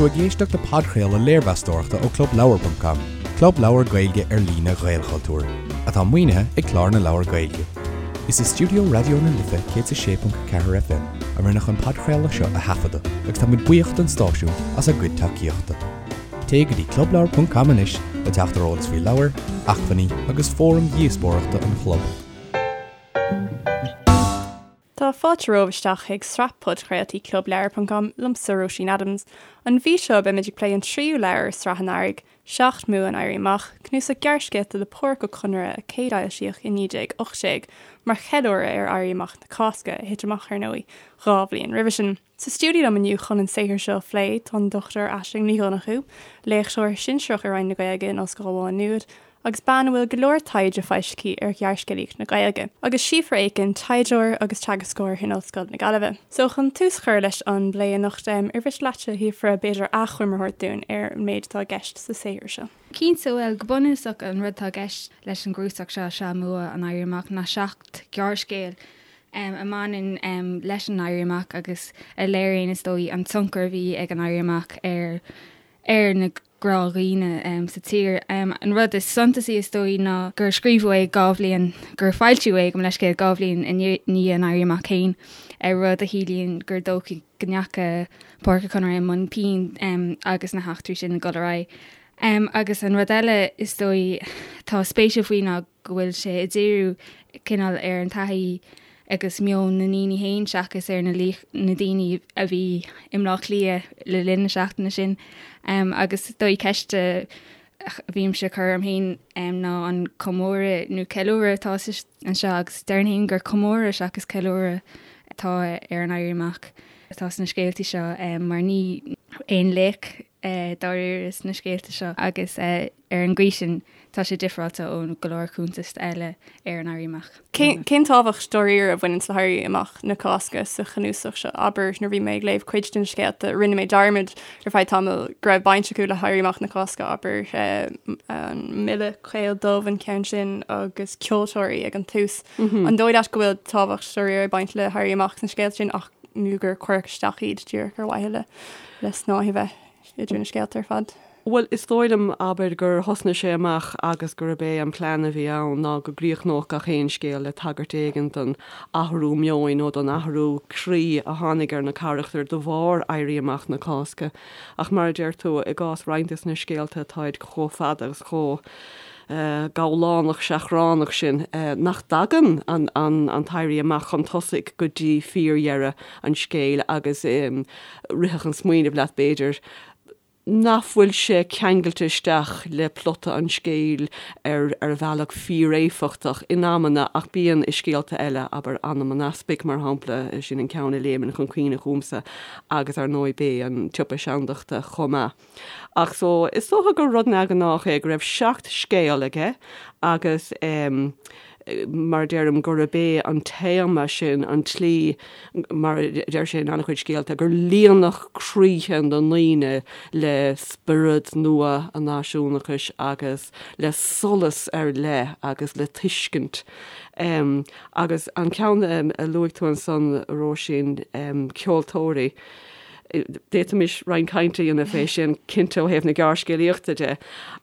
tú ag éisteacht le podchraoladh léirmheastóireachta ó ClubLeabhar.com, club leabhar Gaeilge ar líne Ghaelchultúir, atá maoinithe ag Clár na Leabhar Gaeilge. Is i stiúideo Raidió na Life 106.4 FM a rinneadh an podchraoladh seo a thaifeadadh agus tá muid buíoch don stáisiún as a gcuid tacaíochta. Téigh go dtí clubleabhar.com anois le teacht ar eolas faoi leabhair, acmhainní agus fóraim dhíospóireachta an chlub. Tá fáilte romhaibh isteach chuig sraith podchraoltaí clubleabhar.com liomsa Róisín Adams. An mhí seo beimid ag plé an tríú leabhar i sraith an Earraigh, Seacht mBua an Éirí Amach, cnuasach gearrscéalta le Pádraic Ó Conaire a céadfhoilsíodh i 1918 mar cheiliúradh ar Éirí Amach na Cásca, a thit amach, ar ndóigh, 2 bhliain roimhe sin. Sa stiúideo liom inniu chun an saothar seo a phlé tá an Dr Aisling Ní Dhonnchú, léachtóir sinsearach i Roinn na Gaeilge in Ollscoil Mhá Nuad agus bean a bhfuil go leor taighde foilsithe aici ar ghearrscéalaíocht na Gaeilge, agus Síofra Aiken, taighdeoir agus teagascóir in Ollscoil na Gaillimhe. So chun tús a chur leis an bplé anocht, ar mhiste leat, a Shíofra, b'fhéidir achoimre a thabhairt dúinn ar an méid atá i gceist sa saothar seo? Cinnte, bhuel, go bunúsach an rud atá i gceist leis an gcnuasach seo, Seacht mBua an Éirí Amach, ná seacht gearrscéal a mbaineann leis an Éirí Amach agus a léiríonn, is dóigh, an tionchar a bhí ag an Éirí Amach ar ar na gnáthdhaoine sa tír. An rud is suntasaí, is dóigh, ná gur scríobhadh é 2 bhliain, gur foilsíodh é, gabh mo leithscéal, 2 bhliain i ndiaidh an Éirí Amach féin, rud a chiallaíonn gur dóichí go ndeacha Pádraic Ó Conaire i mbun pinn agus na heachtraí sin ag dul ar aghaidh. Agus an rud eile, is dóigh, atá spéisiúil faoi ná go bhfuil sé ag díriú cineál ar an taithí agus meon na ndaoine féin seachas ar na na daoine a bhí i mBleá Cliath le linn na seachtaine sin. Agus is dóigh ceist a bhímse ag cur orm féin ná an comóradh nó ceiliúradh atá anseo agus déarfainn féin gur comóradh seachas ceiliúradh atá ar an Éirí Amach atá sna scéaltaí seo mar ní aon laoch dáiríre sna scéalta seo agus Ar an gcaoi sin, tá sé difreáilte ó go leor cuntas eile ar an Éirí Amach. Cén tábhacht dáiríre a bhaineann le hÉirí Amach na Cásca sa chnuasach seo? Abair, nuair a bhí mé ag léamh cuid de na scéalta, rinne mé dearmad ar feadh tamaill go raibh baint acu le hÉirí Amach na Cásca, abair, an Milleadh Caol Dubh an ceann sin agus ceoltóirí ag an tús. An dóigh leat go bhfuil tábhacht dáiríre ag baint le hÉirí Amach sna scéalta sin ach nó gur cuireadh isteach iad díreach ar mhaithe le snáith a bheith idir na scéalta ar fad? Bhuel, is dóigh liom, abair, gur thosnaigh sé amach agus gurb é an plean a bhí ann ná go gcríochnódh gach aon scéal le tagairt éigin don athrú meoin nó don athrú croí a tháinig ar na carachtair de bharr Éirí Amach na Cásca. Ach mar a deir tú, i gcás roinnt de na scéalta, táid chomh fada agus chomh gabhlánach seachránach sin nach dtagann an tÉirí Amach chun tosaigh go dtí fíordheireadh an scéil agus rithfeadh an smaoineamh leat, b'fhéidir, nach bhfuil sé ceangailte isteach le plota an scéil ar ar bhealach fíoréifeachtach in amanna ach bíonn i scéalta eile, abair Anam an Easpaig mar shampla, sin an ceann a léimeann chun cuimhne chugamsa agus ar ndóigh Bé an tSiopa Seandachta chomh maith. Ach so, is dócha gur rud neamhghnách é go raibh seacht scéal aige agus em. mar a deirim, gurb é an téama sin an tslí, mar a deir sé in an-chuid scéalta, gur líonadh croíthe na ndaoine le spiorad nua an náisiúnachais agus le solas ar leith agus le tuiscint. Agus an ceann a luaigh tú ansan, a Róisín, ceoltóirí, D'fhéadfaimis roinnt cainte a dhéanamh fé sin, cinnte, ó thaobh na gearrscéalaíochta de,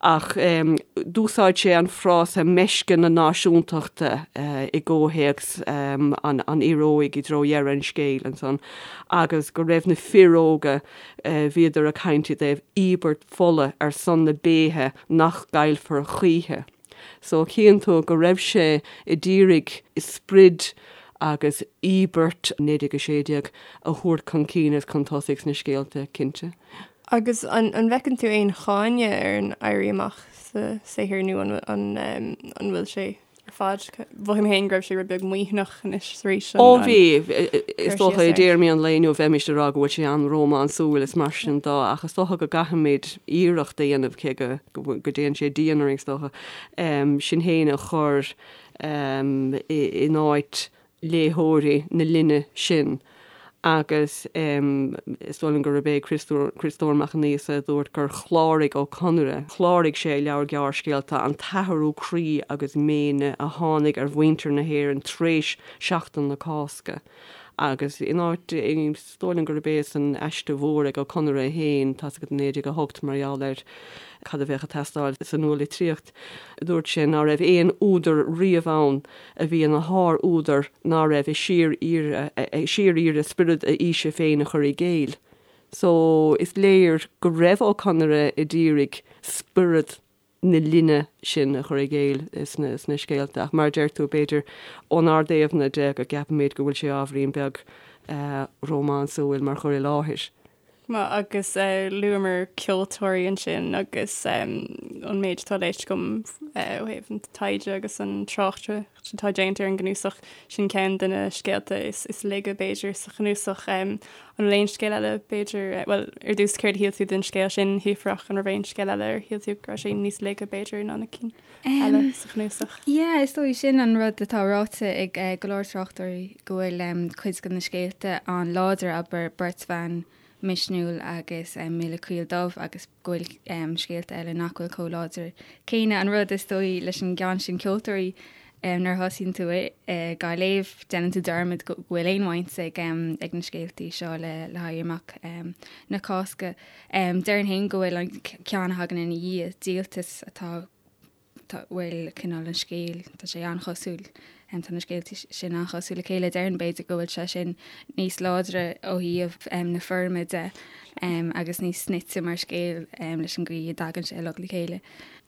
ach d'úsáid sé an frása meisce na náisiúntachta i gcomhthéacs an fhir óig i dtreo dheireadh an scéil ansan, agus go raibh na fir óga, bhíodar ag caint i dtaobh íobairt fola ar son na béithe nach gcaillfear choíche. So chíonn tú go raibh sé a d'iarraidh sprid agus íobairt 1916 a thabhairt chun cinn agus chun tosaigh sna scéalta, cinnte. Agus an bhfeiceann tú aon cháineadh ar an Éirí Amach sa saothar nó an bhfuil sé ar fad? Mhothaigh mé féin go raibh sé rud beag maoithneach anois is arís. Ó bhí, is dócha i dtéarmaí an lae inniu bheimis ag rá go bhfuil sé an-rómánsúil is mar sin de ach is dócha go gcaithfimid iarracht a dhéanamh cé go go dtéann sé dian orainn, is dócha, sinn féin a chur in áit léitheoirí na linne sin agus is dóigh liom gurb é Criostóir Mac an Íosa a dúirt gur chláraigh Ó Conaire, chláraigh sé a leabhar gearrscéalta, an t-athrú croí agus méine a tháinig ar mhuintir na hÉireann tar éis Seachtain na Cásca. Agus in áit, is dóigh liom gurb é san aiste mhór ag Ó Conaire féin, tá's agat, 1908, mar gheall ar cad a bheadh ag teastáil sa nualitríocht, dúirt sé ná raibh aon údar riamh ann a bhí ina shár-údar ná raibh ag síor-iarraidh spiorad a aoise féin a chur i gcéill. So, is léir go raibh Ó Conaire a d'iarraidh spiorad na linne sin a chur i gcéill sna scéalta. Ach mar a deir tú, b'fhéidir ónár dtaobhna de go gceapaimid go bhfuil sé ábhairín beag rómánsúil mar chur i láthair. Agus luamar ceoltóirí ansin agus an méid atá léite agam ó thaobh an taighde agus an tráchtaireacht atá déanta ar an gcnuasach, sin ceann de na scéalta is laige b'fhéidir sa chnuasach. An bhfuil aon scéal eile b'fhéidir, bhuel ar dtús céard a shíl tú den scéal sin, Shíofrach, an raibh aon scéal eile ar shíl tú go raibh sé níos laige b'fhéidir ná na cinn eile sa chnuasach? Yeah, is dóigh sin an rud atá ráite ag go leor tráchtairí go bhfuil cuid de na scéalta an-láidir, abair Beirt Bhan Misniúil agus Milleadh Coill Dubh agus go bhfuil scéalta eile nach bhfuil chomh láidir céanna. An rud is dóigh leis an gceann sin Ceoltóirí, nuair a thosaíonn tú dhá léamh, déanann tú dearmad go bhfuil aon bhaint ag ag na scéaltaí seo le le hÉirí Amach na Cásca. Déarfainn féin go bhfuil an ceann a thagann ina dhiaidh, Díoltas, atá tá, bhfuil cineál an scéil, tá sé an-chosúil, tá na scéalta sin an-chosúil le chéile, déarfainn b'fhéidir go bhfuil sé sin níos láidre ó thaobh na foirme de agus níos snoite mar scéal leis an gcaoi a dtagann sé uilig le chéile.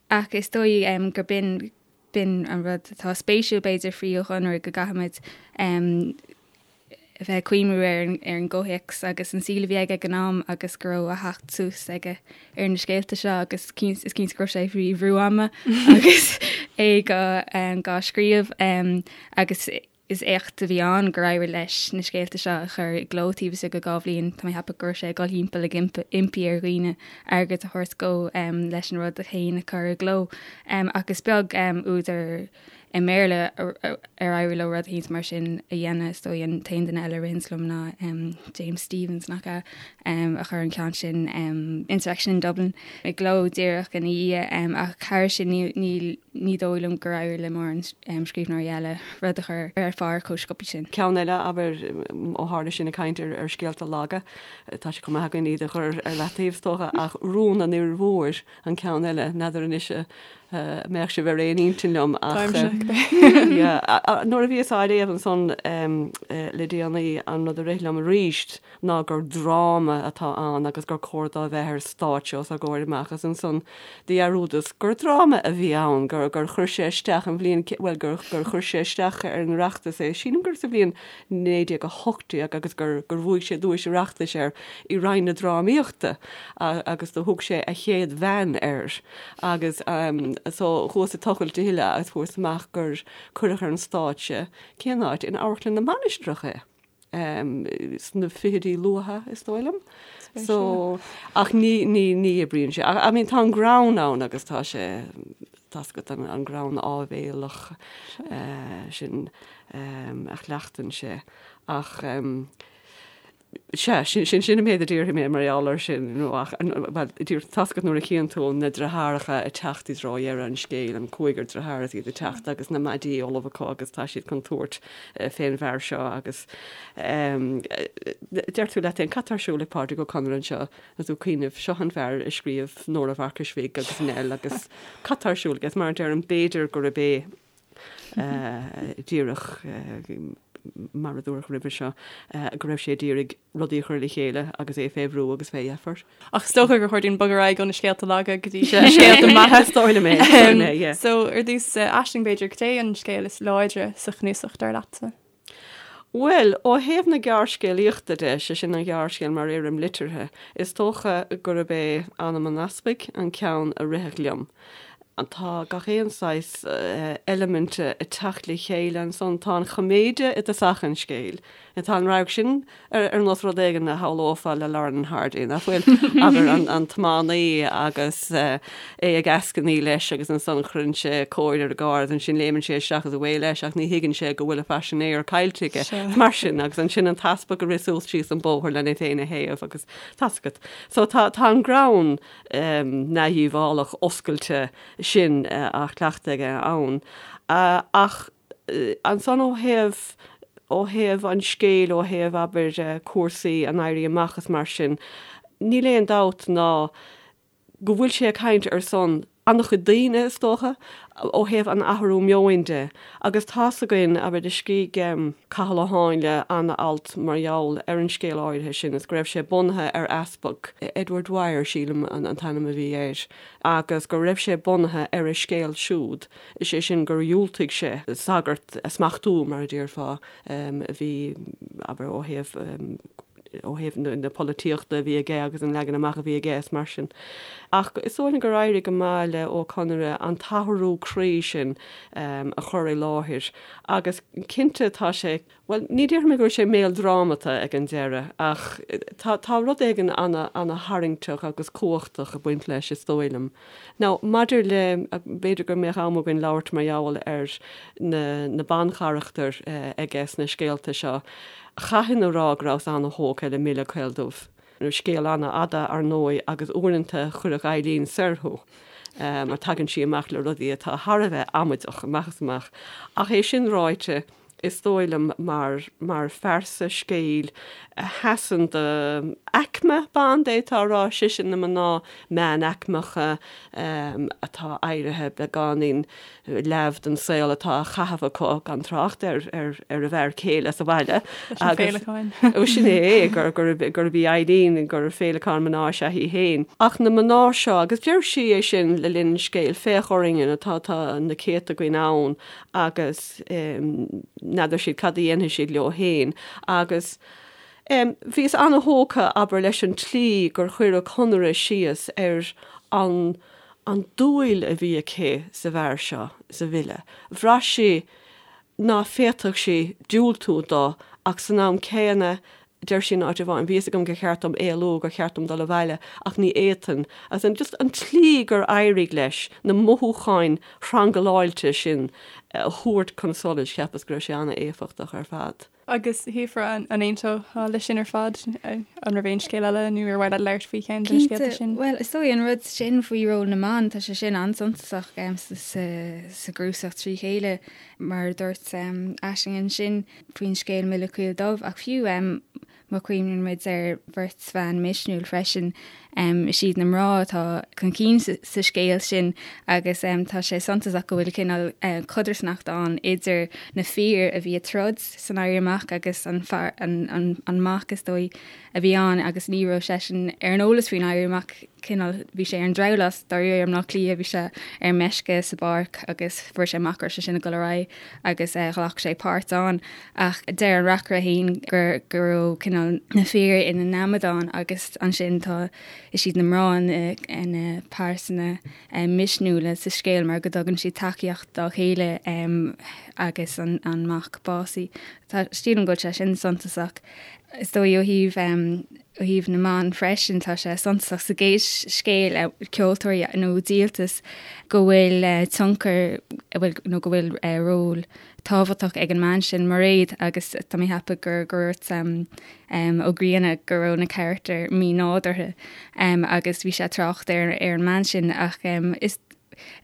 Ach is dóigh gur b'in, b'in an rud atá spéisiúil b'fhéidir faoi Ó Conaire go gcaithfimid a bheith ag cuimhniú ar ar an gcomhthéacs agus an saol a bhí aige ag an am agus go raibh a theacht suas aige ar na scéalta seo agus is cinnte go raibh sé faoi bhrú ama agus é dhá scríobh agus is éacht a bhí ann gur éirigh leis na scéalta seo a chur i gcló taobh istigh de 2 bhliain. Tá mé ag ceapadh go raibh sé ag dul thimpeall ag impí ar dhaoine airgead a thabhairt dó leis an rud féin a chur i gcló ach is beag údar i mBéarla ar éirigh leo rud éicint mar sin a dhéanamh. Is dóigh an t-aon duine eile a ritheanns liom ná James Stephens, nach ea, a chuir an ceann sin, Insurrection in Dublin, i gcló díreach ina dhiaidh. Ach thairis sin níl, ní dóigh liom gur éirigh le mórán scríbhneoirí eile rud a chur ar phár chomh sciobtha sin. Ceann eile, abair, ó tharla sinn ag caint ar scéalta laga, tá sé chomh maith againn iad a chur ar leataobh, is dócha, ach Rún an Fhir Mhóir an ceann eile, n'fheadar anois mbeadh sibh ar aon intinn liom ach nuair a bhíos á léamh ansan le déanaí an rud a rith liom arís ná gur dráma atá ann agus gur cóir dó a bheith ar stáitse os ár gcomhair amach agus ansan do dhearúdas gur dráma a bhí ann, gur gur chuir sé isteach an bhliain, bhuel gur gur chuir sé isteach ar an Oireachtas é, sílim gur sa bhliain 1918 agus gur gur bhuaigh sé duais Oireachtais air i Roinn na Drámaíochta agus do thug sé A Chéad Bhean air. Agus so chuas ag tochailt a thuilleadh agus fuaireas amach gur cuireadh ar an stáitse, cén áit, in Amharclann na Mainistreach é, sna fichidí luatha, is dóigh liom. So, ach ní, ní, ní oibríonn sé. I mean, tá an greann ann agus tá sé, tá's agat, an greann áibhéalach sin a chleachtann sé. Ach. Sea, sin, sin, sin an méid a déarfaidh mé mar gheall air sin, nó ach, bhuel, díreach, tá's agat nuair a chíonn tú na deartháireacha ag teacht i dtreo dheireadh an scéil, an cúigear dearthár is iad ag teacht agus na maidí ullamh acu agus tá siad chun tabhairt fén bhfear seo agus deir tú leat féin, cad tá ar siúl ag Pádraic Ó Conaire anseo? Agus tú ag cuimhneamh, seo an fear a scríobh Nóra Mharcais Bhig agus Nell agus cad tá ar siúl aige? Mar a deirim, b'fhéidir gurb é díreach mar a dúradh roimhe seo, go raibh sé d'iarraidh rudaí a chur le chéile agus é fé bhrú agus fé dheifir. Ach is dócha gur chóir dúinn bogadh ar aghaidh ó na scéalta laga go dtí na scéalta maithe. Is dóigh liom é, is dóigh liom é, yeah. So, ar dtús, Aisling, b'fhéidir, cad é an scéal is láidre sa chnuasach, dar leatsa? Bhuel, ó thaobh na gearrscéalaíochta de, sé sin an ghearrscéal mar fhoirm liteartha, is dócha gurb é Anam an Easpaig an ceann a rithfeadh liom. Tá gach aon saghas eiliminte ag teacht le chéile ansan. Tá an choiméide i dtosach an scéil. Tá an radharc sin ar nós rud éigin a shamhlófá le Laurel and Hardy, nach bhfuil? Abair, an tiománaí agus é ag eascainí leis agus ansan cuireann sé cóir ar an gcarr agus ansin léimeann sé isteach agus away leis ach ní thuigeann sé go bhfuil a phaisinéir caillte aige. Mar sin, agus ansin an t-easpag ag rith suas síos an bóthar lena féin a théamh agus tá's agat. So tá tá an greann neamhdhíobhálach oscailte sin á chleachtadh aige ann. Ach ansan ó thaobh. ó thaobh an scéil, ó thaobh, abair, cúrsaí an Éirí Amach is mar sin, níl aon dabht ná go bhfuil sé ag caint ar son an-chuid daoine, is dócha, ó thaobh an athrú meoin de. Agus tá's againn, abair, do scrígh Cathal Ó Háinle an-alt mar gheall ar an scéal áirithe sin is go raibh sé bunaithe ar easpag, Edward Dwyer, sílim, an t-ainm a bhí air, agus go raibh sé bunaithe ar a scéal siúd, is é sin gur dhiúltaigh sé sagart a smachtú, mar a déarfá, a bhí, abair, ó thaobh, ó thaobh na polaitíochta a bhí aige agus an leagan amach a bhí aige is mar sin. Ach is dóigh liom gur éirigh go maith le Ó Conaire an t-athrú croí sin a chur i láthair agus cinnte tá sé, bhuel, ní déarfaidh mé go bhfuil sé méaldrámata ag an deireadh ach tá, tá rud éigin ana-tharraingteach agus cumhachtach ag baint leis is dóigh liom. Now, maidir le, b'fhéidir go mbeadh am againn labhairt mar gheall ar na, na bancharachtair aige sna scéalta seo, Chaithfinn a rá go rabhas ana-thógtha le Mile Caol Dubh. Scéal ana-fhada, ar ndóigh, agus uaireanta chuirfeadh Eileen soir thú, mar tagann sí amach le rudaí atá thar a bheith amaideach, amach is amach. Ach é sin ráite, is dóigh liom, mar, mar phearsa scéil a sheasann do aicme ban, d'fhéadfá a rá, sise na mná meánaicmeacha atá éirithe beagáinín leamh den saol atá á chaitheamh acu, gan trácht ar ar a bhfear céile sa bhaile. Leis na féileacáin. Ó sin é, gur gurb í Eileen, gur féileacán mná is ea í féin. Ach na mná seo, agus deir sí é sin le linn an scéil, féach orainne, tá tá na céadta againn ann agus n'fheadar siad cad a dhéanfaidh siad leo féin. Agus bhíos ana-thógtha, abair, leis an tslí gur chuir Ó Conaire síos ar an an dúil a bhí aici sa bhfear seo, sa Mhile. Bhraith sí ná féadfadh sí diúltú do ach san am céanna, deir sí in áit amháin, bhí fhios agam gur cheart dom éalú, gur cheart dom dul abhaile ach ní fhéadfainn. Agus an just an tslí gur éirigh leis na mothúcháin thrangláilte sin a thabhairt chun solais, cheapas go raibh sé an-éifeachtach ar fad. Agus Shíofra, an aontófá leis sin ar fad? An raibh aon scéal eile nó ar mhaith leat labhairt faoi cheann de na scéalta sin? Bhuel, is dóigh an rud sin faoi ról na mban, tá sé sin an-suntasach sa gcnuasach trí chéile, mar a dúirt Aisling ansin faoin scéal Mile Caol Dubh, ach fiú Má chuimhníonn muid ar bheirt bhan misniúil freisin, is iad na mná atá chun cinn sa scéal sin agus tá sé suntasach go bhfuil cineál codarsnacht ann idir na fir a bhí ag troid san Éirí Amach agus an fear, an mac is dóigh, a bhí ann agus ní raibh seisean ar an eolas faoin Éirí Amach. cineál, bhí sé ar an drabhlás dáiríre i mBleá Cliath, bhí sé ar meisce sa bpáirc agus fuair sé amach go raibh sé sin ag dul ar aghaidh agus ghlac sé páirt ann. Ach deir an reacaire féin gur go raibh cineál na fir ina n-amadáin agus ansin tá, is iad na mná na pearsana misniúla sa scéal mar go dtugann siad tacaíocht dá chéile agus an mac básaithe. Tá, sílim go bhfuil sé sin suntasach. Is dóigh ó thaobh Ó thaobh na mban freisin, tá sé suntasach sa gcéad scéal, Ceoltóirí nó Díoltas, go bhfuil tionchar, nó go bhfuil ról tábhachtach ag an mbean sin, Mairéad, agus tá mé ag ceapadh gur dhúirt Ó Grianna go raibh na carachtair mí-nádúrtha agus bhí sé ag trácht ar an mbean sin ach is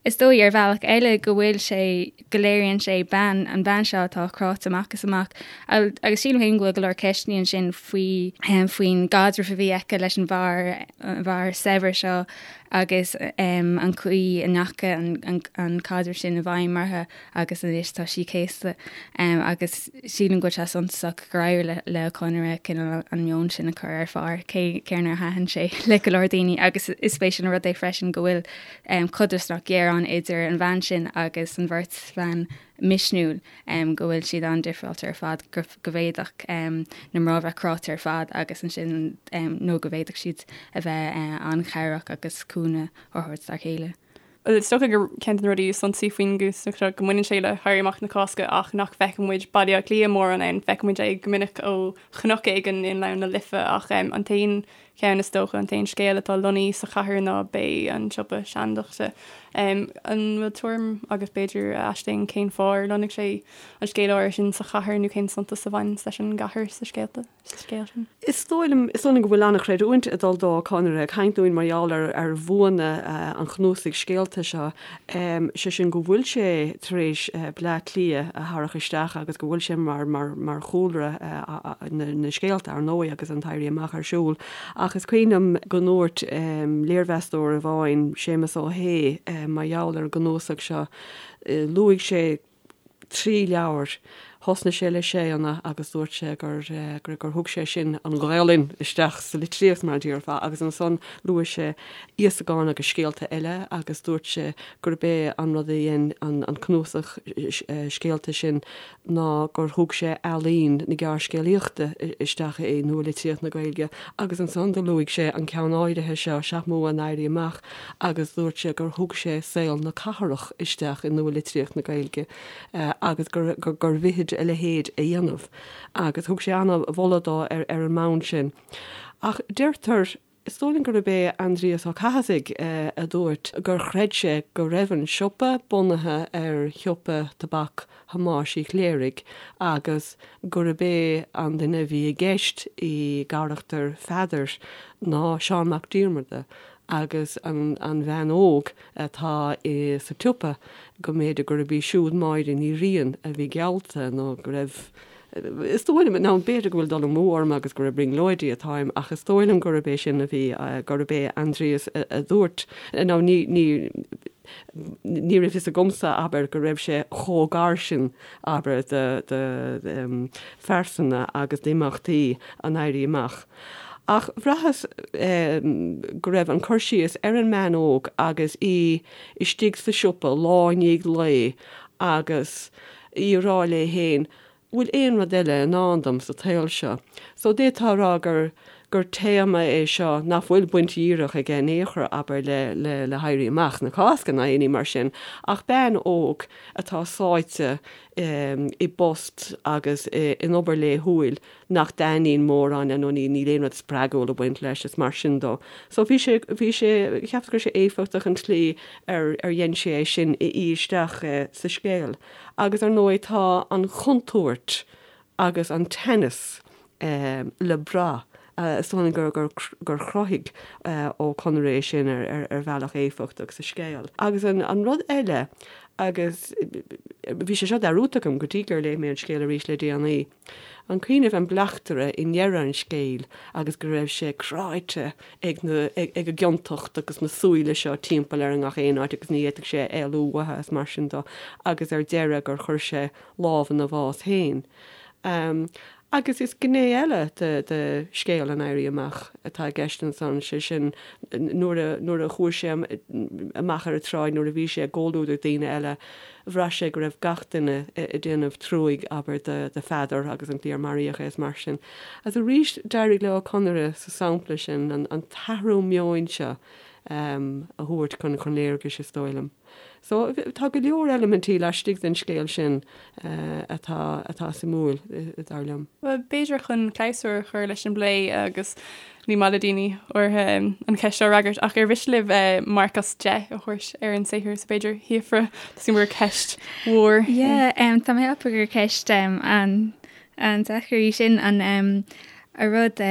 Is dóigh, ar bhealach eile, go bhfuil sé, go léiríonn sé bean, an bhean seo atá cráite amach is amach. Agus sílim féin go bhfuil go leor ceisteanna ansin faoi, faoin gcaidreamh a bhí aici leis an bhfear, an bhfear saibhir seo agus an chaoi a ndeachaigh an, an caidreamh sin i bhfeidhm uirthi agus anois tá sí céasta. Agus sílim go bhfuil sé suntasach gur éirigh le Ó Conaire cineál an meon sin a chur ar phár, cé, cé nár thaitin sé le go leor daoine. Agus is spéisiúil an rud é freisin go bhfuil codarsnacht ghéar ann idir an bhean sin agus an bheirt bhan misniúil, go bhfuil siad an-difreáilte ar fad, go bhféadfadh na mná bheith cráite ar fad agus ansin, nó go bhféadfadh siad a bheith an-chabhrach agus cúnamh a thabhairt dá chéile. Is dócha gur ceann de na rudaí is suntasaí faoin gcnuasach seo go mbaineann sé le hÉirí Amach na Cásca ach nach bhfeiceann muid Baile Átha Cliath mórán ann. Feiceann muid é go minic ó chnoc éigin i nGleann na Life ach an t-aon cheann is dócha, an t-aon scéal atá lonnaithe sa chathair ná b'é an Siopa Seandachta. An bhfuil tuairim agat b'fhéidir, a Aisling, cén fáth ar lonnaigh sé an scéal áirithe sin sa chathair nó cén suntas a bhaineanns leis an gcathair sa scéalta, sa scéal sin? Is dóigh liom, is dóigh liom go bhfuil an-chreidiúint ag dul do Ó Conaire ag caint dúinn mar gheall ar ar bhuanna an chnuasaigh scéalta. scéalta seo, sé sin go bhfuil sé tar éis Bleá Cliath a tharrac isteach agus go bhfuil sé mar, mar, mar chúlra na, na scéalta, ar ndóigh, agus an tÉirí Amach ar siúl. Ach is cuimhin liom go ndúirt léirmheastóir amháin, Séamus Ó hAodha, mar gheall ar an gcnuasach seo, luaigh sé, 3 leabhar. Thosnaigh sé le Séanna agus dúirt sé gur gur thug sé sin an Ghaelainn isteach sa litríocht mar a déarfá agus ansan luaigh sé Íosagán agus scéalta eile agus dúirt sé gurb é an rud a dhein an cnuasach scéalta sin ná gur thug sé ealaín na gearrscéalaíochta isteach i nua-litríocht na Gaeilge agus ansan do luaigh sé an ceann áirithe seo, Seacht mBua an Éirí Amach agus dúirt sé gur thug sé saol na cathrach isteach i nua-litríocht na Gaeilge agus gur gur mhithid a leithéid a dhéanamh agus thug sé an-mholadh dó ar ar an mbonn sin. Ach deirtear, is dóigh liom gurb é Aindrias Ó Cathasaigh a dúirt gur chreid sé go raibh an siopa bunaithe ar shiopa tobac Thomáis Uí Chléirigh agus gurb é an duine a bhí i gceist i gcarachtar Pheadair ná Seán Mac Diarmada agus an bhean óg atá sa tsiopa, go mb'fhéidir gurb í siúd Máire Ní Riain a bhí geallta nó go raibh, is dóigh liom, now b'fhéidir go bhfuil dul amú orm agus gur ag brionglóidí atáim ach is dóigh liom gurb é sin a bhí, gurb é Aindrias a dúirt, now ní, ní, ní raibh fhios agamsa, abair, go raibh sé chomh gar sin, abair, do, do phearsana agus d'imeachtaí an Éirí Amach. Ach bhraitheas go raibh an cur síos ar an mbean óg agus í istigh sa siopa lá i ndiaidh lae agus í ag rá léi féin, bhfuil aon rud eile i ndán dom sa tsaol seo? So d'fhéadfá a rá gur gur téama é seo nach bhfuil baint dhíreach aige in aon chor, abair, le le le hÉirí Amach na Cásca ná aon ní mar sin, ach bean óg atá sáite i bpost agus in obair laethúil nach dtaitníonn mórán léi nó ní níl aon rud spreagúil ag baint leis is mar sin dó. So bhí sé, bhí sé, cheapas go raibh sé éifeachtach an tslí ar ar dhein sé é sin a fhí isteach sa scéal. Agus ar ndóigh tá an chontúirt agus an teannas le brath, is dóigh liom gur gur gur chruthaigh Ó Conaire é sin ar ar ar bhealach éifeachtach sa scéal. Agus an an rud eile agus bhí sé seo dearúdta agam go dtí gur léigh mé an scéal arís le déanaí, An cuimhin libh an bleachtaire i ndeireadh an scéil agus go raibh sé cráite ag na, ag an gciontacht agus na súile seo timpeall air i ngach aon áit agus ní fhéadfadh sé éalú uathu is mar sin dó agus ar deireadh gur chuir sé lámh ina bhás féin. Agus is gné eile de, de scéal an Éirí Amach atá i gceist ansan, sé sin nuair a, nuair a chuaigh sé amach ar an tsráid, nuair a bhí sé i gcomhluadar daoine eile, Bhraith sé go raibh gach duine ag déanamh truaigh, abair, do Pheadar agus an tslí ar maraíodh é is mar sin. Agus arís d'éirigh le Ó Conaire sa sampla sin an t-athrú meoin seo a thabhairt chun léargais, is dóigh liom. So tá go leor eilimintí laistigh den scéal sin atá atá suimiúil, dar liom. Bhuel, b'fhéidir chun clabhsúr a chur leis an bplé agus ní maith le daoine áirithe an cheist seo a fhreagairt ach ar mhiste libh marc as 10 a thabhairt ar an saothar so b'fhéidir Shíofra tá gur ceist mhór. Yeah, tá mé ag ceapadh gur ceist an an-deacair í sin an a rud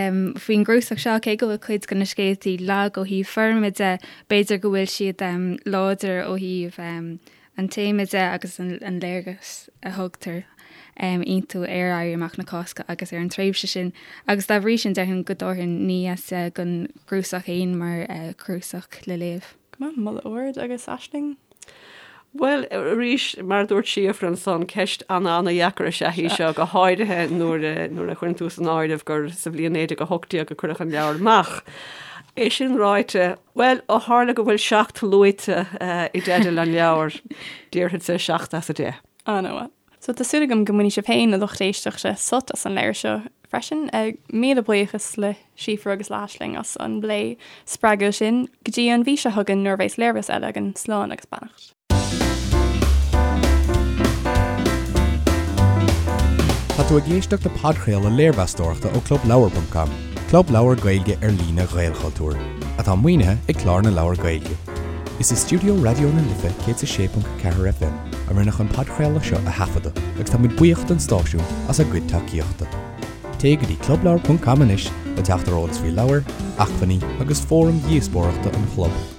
faoin gcnuasach seo cé go bhfuil cuid de na scéaltaí lag ó thaobh foirme de, b'fhéidir go bhfuil siad láidir ó thaobh an téama de agus an léargas a thugtar iontu ar Éirí Amach na Cásca agus ar an tréimhse sin agus dá bhrí sin déarfainn go dtabharfainn 9 as 10 don chnuasach féin mar chnuasach le léamh. Go maith, moladh ard agus Aisling? Bhuel, arís, mar a dúirt Síofra ansan, ceist ana-ana-dheacair is ea í seo, go háirithe nuair a nuair a chuireann tú san áireamh gur sa bhliain 1918 a cuireadh an leabhar amach. É sin ráite, Bhuel, ó tharla go bhfuil 7 luaite i dteideal an leabhair, déarfadsa 7 as 10. An-mhaith. So tá súil agam go mbainfidh sibh féin, a lucht éisteachta, sult as an leabhar seo freisin. Míle buíochas le Síofra agus le hAisling as an bplé spreagúil sin. Go dtí an mhí seo chugainn nuair a bheas léirmheas eile againn, slán agus beannacht. Tá tú ag éisteacht le podchraoladh léirmheastóireachta ó ClubLeabhar.com, club leabhar Gaeilge ar líne Ghaelchultúir, atá maoinithe ag Clár na Leabhar Gaeilge. Is i stiúideo Raidió na Life 106.4 FM a rinneadh an podchraoladh seo a thaifeadadh agus tá muid buíoch don stáisiún as a gcuid tacaíochta. Téigh go dtí clubleabhar.com anois le teacht ar eolas faoi leabhair, acmhainní agus fóraim dhíospóireachta an chlub.